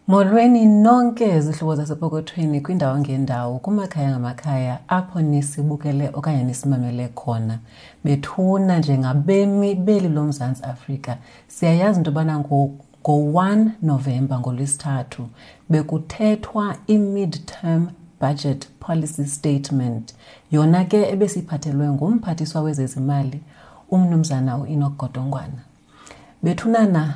Molweni nonke zihlobo zasepokothweni kwindawo ngendawo kumakhaya ngamakhaya apho nisibukele okanye nisimamele khona. Bethuna njengabemi beli loMzantsi Afrika siyayazi into yobana ngo-1 Novemba ngoLwesithathu bekuthethwa i-mid-term budget policy statement yona ke ebesiyiphathelwe ngumphathiswa wezezimali umnumzana uEnoch Godongwana. Bethunana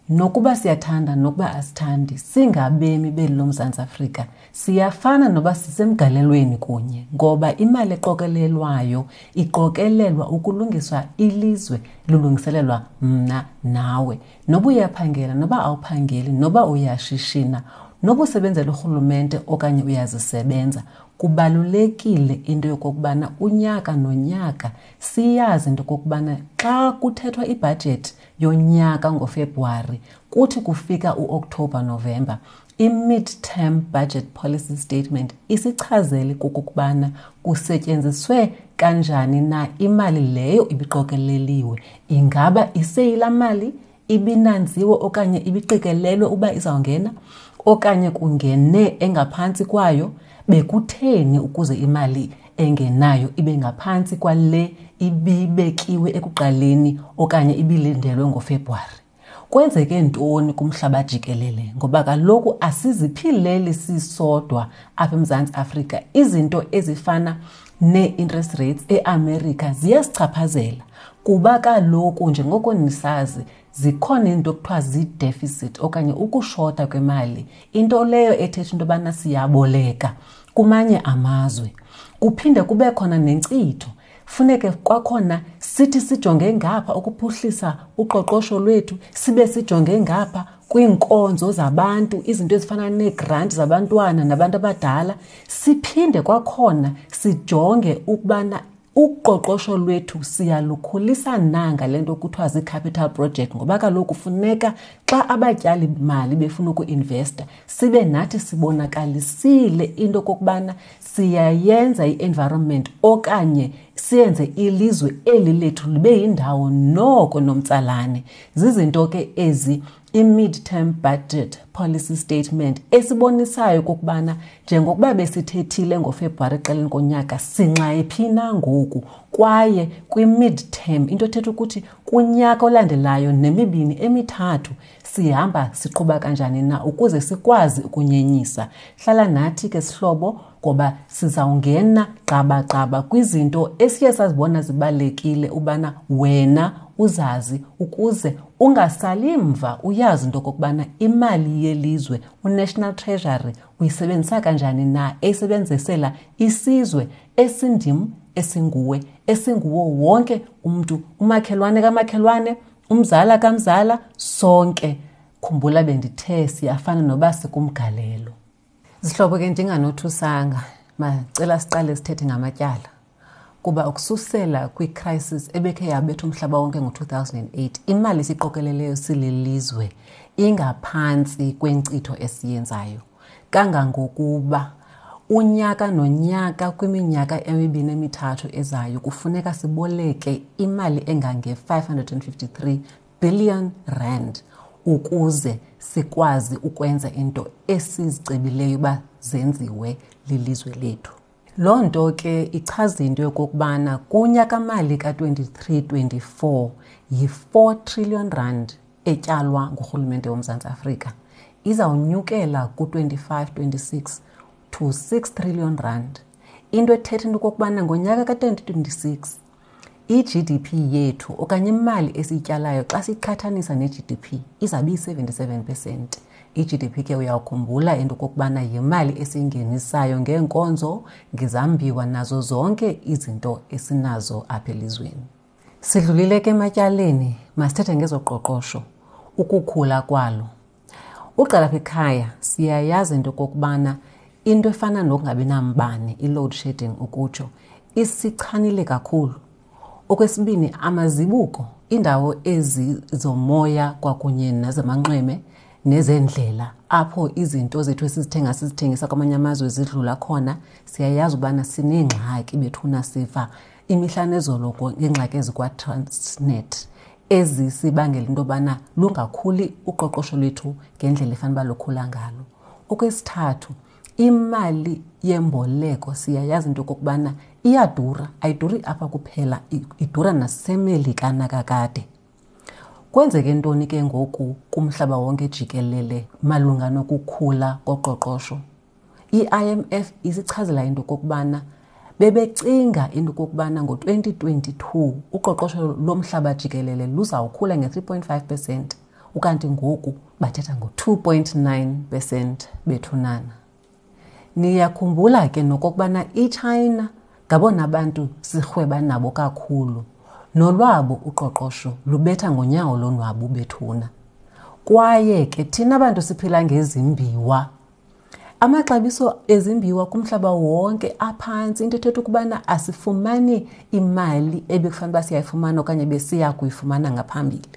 nokuba siyathanda nokuba asithandi singabemi beli loMzantsi Afrika siyafana noba sisemgalelweni kunye ngoba imali eqokelelwayo iqokelelwa ukulungiswa ilizwe lulungiselelwa mna nawe. Noba uyaphangela noba awuphangeli noba uyashishina noba usebenzela urhulumente okanye uyazisebenza kubalulekile into yokokubana unyaka nonyaka siyazi into yokokubana xa kuthethwa ibhajethi yonyaka ngoFebruwari kuthi kufika uOkthobha Novemba i-mid-term budget policy statement isichazele kokokubana kusetyenziswe kanjani na imali leyo ibiqokeleliwe. Ingaba iseyila mali ibinanziwe okanye ibiqikelelwe uba izawungena okanye kungene engaphantsi kwayo? Bekutheni ukuze imali engenayo ibe ngaphantsi kwale ibibekiwe ekuqaleni okanye ibilindelwe ngoFebruwari? Kwenzeke ntoni kumhlaba jikelele? Ngoba kaloku asiziphileli sisodwa apha eMzantsi Afrika. Izinto ezifana nee-interest rates eAmerica ziyasichaphazela kuba kaloku njengoko nisazi zikhona iinto ekuthiwa zii-deficit okanye ukushota kwemali, into leyo ethetha into yobana siyaboleka kumanye amazwe. Kuphinde kube khona nenkcitho, funeke kwakhona sithi sijonge ngapha ukuphuhlisa uqoqosho lwethu, sibe sijonge ngapha kwiinkonzo zabantu, izinto ezifana neegranti zabantwana nabantu abadala, siphinde kwakhona sijonge ukubana uqoqosho lwethu siyalukhulisa na ngale nto kuthiwa zii-capital project, ngoba kaloku funeka xa abatyali mali befuna ukuinvesta sibe nathi sibonakalisile into okokubana siyayenza i-environment okanye siyenze ilizwe eli lethu libe yindawo noko nomtsalane. Zizinto ke ezi i-mid-term budget policy statement esibonisayo okokubana njengokuba besithethile ngoFebruwari ekuqaleni konyaka sinxayephi na ngoku, kwaye kwi-mid-term into ethetha ukuthi kunyaka olandelayo nemibini emithathu sihamba siqhuba kanjani na ukuze sikwazi ukunyenyisa. Hlala nathi ke sihlobo ngoba sizawungena gqabagqaba kwizinto esiye sazibona zibalulekile ubana wena uzazi ukuze ungasali mva, uyazi into okokubana imali yelizwe uNational Treasury uyisebenzisa kanjani na, eyisebenzisela isizwe esindim, esinguwe, esinguwo wonke umntu, umakhelwane kamakhelwane, umzala kamzala, sonke. Khumbula bendithe siyafana noba sikumgalelo. Zihlobo ke ndinganothusanga, macela siqale sithethe ngamatyala. Kuba ukususela kwi-crisis ebekhe yabetha umhlaba wonke ngo-2008, imali esiqokeleleyo sililizwe ingaphantsi kwenkcitho esiyenzayo. Kangangokuba unyaka nonyaka kwiminyaka emibini emithathu ezayo kufuneka siboleke imali engange-553 billion rand ukuze sikwazi ukwenza into esizicebileyo uba zenziwe lilizwe lethu. Loo nto ke ichaza into yokokubana kunyakamali ka-23-24 yi-4 trillion rand etyalwa ngurhulumente woMzantsi Afrika. Izawunyukela ku-25-26 to 6 trillion rand. Into ethetha into okokubana ngonyaka ka-2026 i-GDP yethu okanye imali esiyityalayo xa siqhathanisa ne-GDP izawube iyi-77%. I-GDP ke uyawukhumbula into okokubana yimali esiyingenisayo ngeenkonzo, ngezambiwa nazo zonke izinto esinazo apha elizweni. Sidlulile ke ematyaleni, masithethe ngezoqoqosho, ukukhula kwalo. Uqala apha ekhaya siyayazi into okokubana into efana nokungabi nambane, i-load shedding ukutsho, isichanile kakhulu. Okwesibini, amazibuko, iindawo ezi zomoya kwakunye nezamanxweme nezendlela apho izinto zethu esizithenga sizithengisa kwamanye amazwe zidlula khona, siyayazi ubana sineengxaki bethuna, siva imihla nezolo ngeengxaki ezikwaTransnet. ezisibangela into yobana lungakhuli uqoqosho lwethu ngendlela efanele uba lukhula ngalo. Okwesithathu, imali yemboleko siyayazi into yokokubana iyadura, ayiduri apha kuphela, idura naseMelika nakakade. Kwenzeke ntoni ke ngoku kumhlaba wonke jikelele malunga nokukhula koqoqosho? I-IMF isichazela into okokubana bebecinga into okokubana ngo-2022 uqoqosho lomhlaba jikelele luzawukhula nge-3.5 percent, ukanti ngoku bathetha ngo-2.9 percent bethunana. Niyakhumbula ke nokokubana iChina ngabona bantu sirhweba nabo kakhulu, nolwabo uqoqosho lubetha ngonyawo lonwabu bethuna. Kwaye ke thina bantu siphila ngezimbiwa, amaxabiso ezimbiwa kumhlaba wonke aphantsi, into ethetha ukubana asifumani imali ebekufanele uba siyayifumana okanye besiya kuyifumana ngaphambili.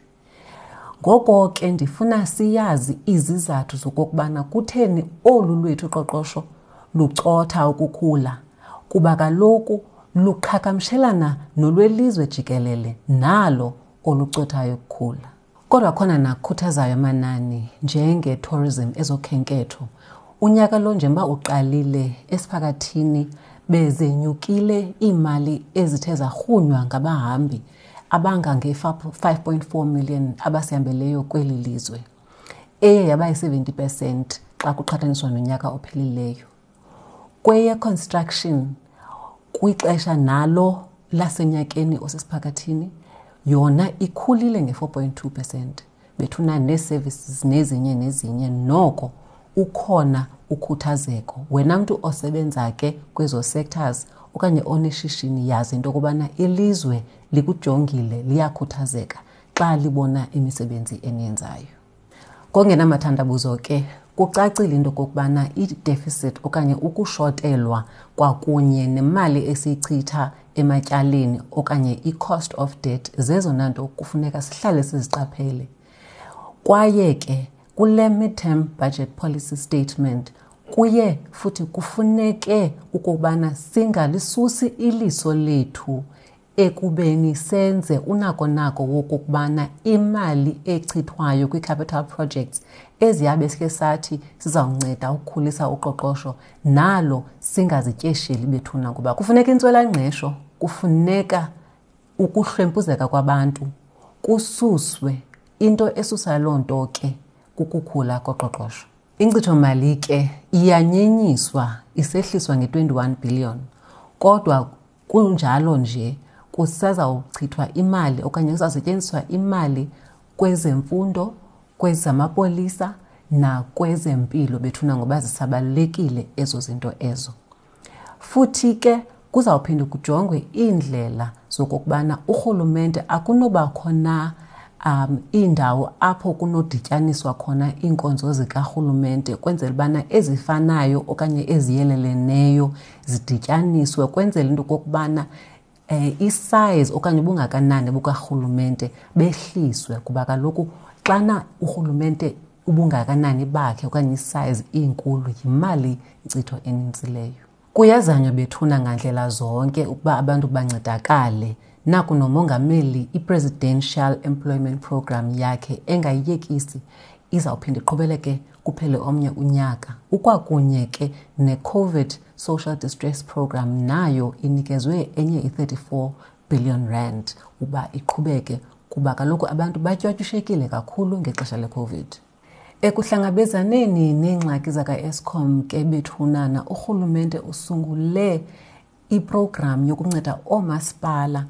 Ngoko ke ndifuna siyazi izizathu zokokubana kutheni olu lwethu uqoqosho lucotha ukukhula, kuba kaloku luqhagamshelana nolwelizwe jikelele nalo olucothayo ukukhula. Kodwa khona nakhuthazayo amanani njenge-tourism, ezokhenketho. Unyaka lo njengoba uqalile esiphakathini bezenyukile iimali ezithe zarhunywa ngabahambi abangange-5.4 million abasihambeleyo kweli lizwe, eye yaba yi-70 percent xa kuqhathaniswa nonyaka ophelileyo. Kweye-construction kwixesha nalo lasenyakeni osesiphakathini yona ikhulile nge-4.2 percent. Bethuna nee-services nezinye nezinye, noko ukhona ukhuthazeko. Wena mntu osebenza ke kwezo sectors okanye oneshishini, yazi into yokubana ilizwe likujongile, liyakhuthazeka xa libona imisebenzi eniyenzayo. Ngongenamathandabuzo ke kucacile into okokubana i-deficit okanye ukushotelwa kwakunye nemali esiyichitha ematyaleni okanye i-cost of debt zezona nto kufuneka sihlale siziqaphele. Kwaye ke kule midterm budget policy statement kuye futhi kufuneke ukubana singalisusi iliso lethu ekubeni senze unako nako wokokubana imali echithwayo kwi-capital projects eziyabe sike sathi sizawunceda ukukhulisa uqoqosho nalo singazityesheli bethuna, kuba kufuneka intswelangqesho, kufuneka ukuhlwempuzeka kwabantu kususwe. Into esusa loo nto ke kukukhula koqoqosho. Inkcitho-mali ke iyanyenyiswa, isehliswa nge-21 billion, kodwa kunjalo nje kusazawuchithwa imali okanye kuzawusetyenziswa imali kwezemfundo, kwezamapolisa nakwezempilo bethuna, ngoba zisabalulekile ezo zinto ezo. Futhi ke kuzawuphinde kujongwe iindlela zokokubana urhulumente akunobakho na iindawo apho kunodityaniswa khona iinkonzo zikarhulumente, kwenzela ubana ezifanayo okanye eziyeleleneyo zidityaniswe, kwenzela into okokubana isize okanye ubungakanani bukarhulumente behliswe, kuba kaloku xana urhulumente ubungakanani bakhe okanye isize inkulu yimali inkcitho enintsi leyo. Kuyazanywa bethuna ngandlela zonke ukuba abantu bancedakale. Naku nomongameli i-Presidential Employment Program yakhe engayiyekisi, izawuphinda iqhubeleke kuphele omnye unyaka. Ukwakunye ke ne-COVID Social Distress Program nayo inikezwe enye i-34 billion rand uba iqhubeke, kuba kaloku abantu batywatyushekile kakhulu ngexesha le-COVID. Ekuhlangabezaneni neengxaki zaka-Eskom ke bethunana, urhulumente usungule iprogram yokunceda oomasipala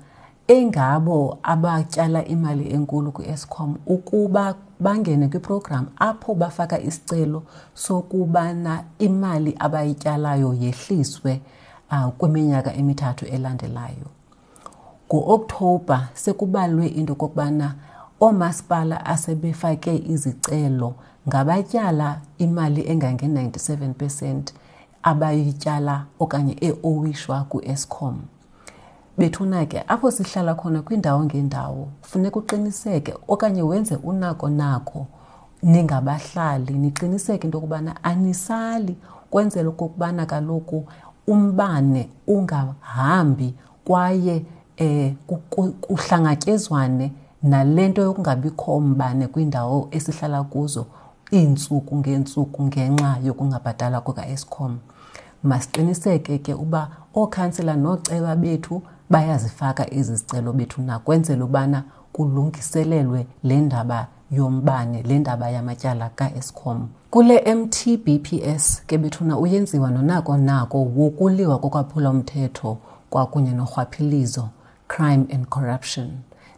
engabo abatyala imali enkulu kwi-Eskom ukuba bangene kwiprogram apho bafaka isicelo sokubana imali abayityalayo yehliswe kwiminyaka emithathu elandelayo. Ngo-Okthobha sekubalwe into okokubana oomasipala asebefake izicelo ngabatyala imali engange-97 percent abayityala okanye eowishwa ku-Eskom. Bethuna ke apho sihlala khona kwiindawo ngeendawo funeka uqiniseke okanye wenze unako nako ningabahlali, niqiniseke into yokubana anisali, kwenzela okokubana kaloku umbane ungahambi kwaye kuhlangatyezwane nale nto yokungabikho mbane kwiindawo esihlala kuzo iintsuku ngeentsuku ngenxa yokungabhatalwa kukaEskom. Masiqiniseke ke uba ookhansila nooceba bethu bayazifaka ezi zicelo bethu nakwenzela ubana kulungiselelwe le ndaba yombane, le ndaba yamatyala kaEskom. Kule MTBPS ke bethuna uyenziwa nonako nako wokuliwa kokwaphula umthetho kwakunye norhwaphilizo, crime and corruption.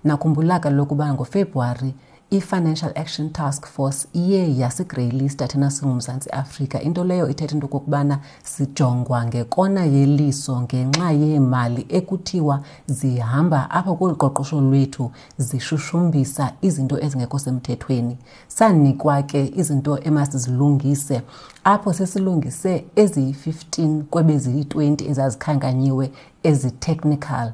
Nakhumbula kaloku uba ngoFebruwari i-Financial Action Task Force iye yasigreyilista thina singuMzantsi Afrika, into leyo ithetha into okokubana sijongwa ngekona yeliso ngenxa yeemali ekuthiwa zihamba apha kolu qoqosho lwethu zishushumbisa izinto ezingekho semthethweni. Sanikwa ke izinto emasizilungise apho sesilungise eziyi-15 kwebeziyi-20 ezazikhankanyiwe ezi-technical.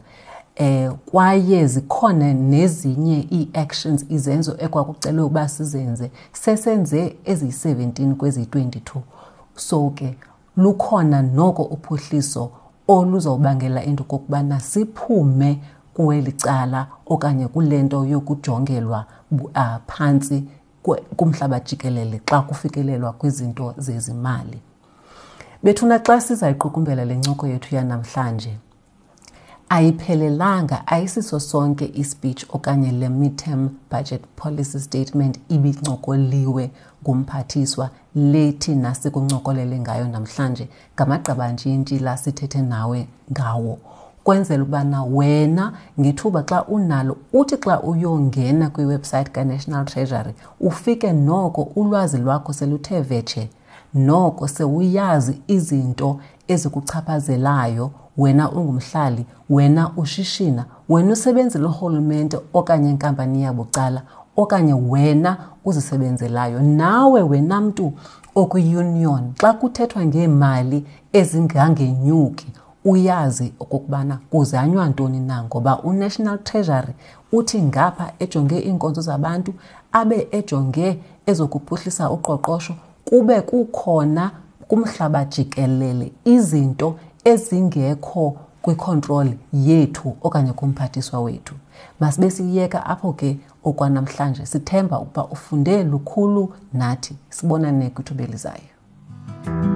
Kwaye zikhona nezinye ii-actions, izenzo ekwakucelwe uba sizenze, sesenze eziyi-17 kweziyi-22. So ke lukhona noko uphuhliso oluzobangela into okokubana siphume kweli cala okanye kule nto yokujongelwa phantsi kumhlaba jikelele xa kufikelelwa kwizinto zezimali. Bethuna, xa sizayiqukumbela le ncoko yethu yanamhlanje, ayiphelelanga, ayisiso sonke ispeech okanye le midterm budget policy statement ibincokoliwe ngumphathiswa le thina sikuncokolele ngayo namhlanje ngamagqabantshintshi la sithethe nawe ngawo, kwenzela ubana wena ngethuba xa unalo uthi xa uyongena kwiwebsite kaNational Treasury ufike noko ulwazi lwakho seluthe vetshe, noko sewuyazi izinto ezikuchaphazelayo wena ungumhlali, wena ushishina, wena usebenzela urhulumente okanye inkampani yabucala, okanye wena uzisebenzelayo, nawe wena mntu okwi-union. Xa kuthethwa ngeemali ezingangenyuki uyazi okokubana kuzanywa ntoni na, ngoba uNational Treasury uthi ngapha ejonge iinkonzo zabantu, abe ejonge ezokuphuhlisa uqoqosho, kube kukhona kumhlaba jikelele izinto ezingekho kwicontrol yethu okanye kumphathiswa wethu. Masibe siyeka apho ke okwanamhlanje, sithemba ukuba ufunde lukhulu nathi. Sibonane kwithuba elizayo.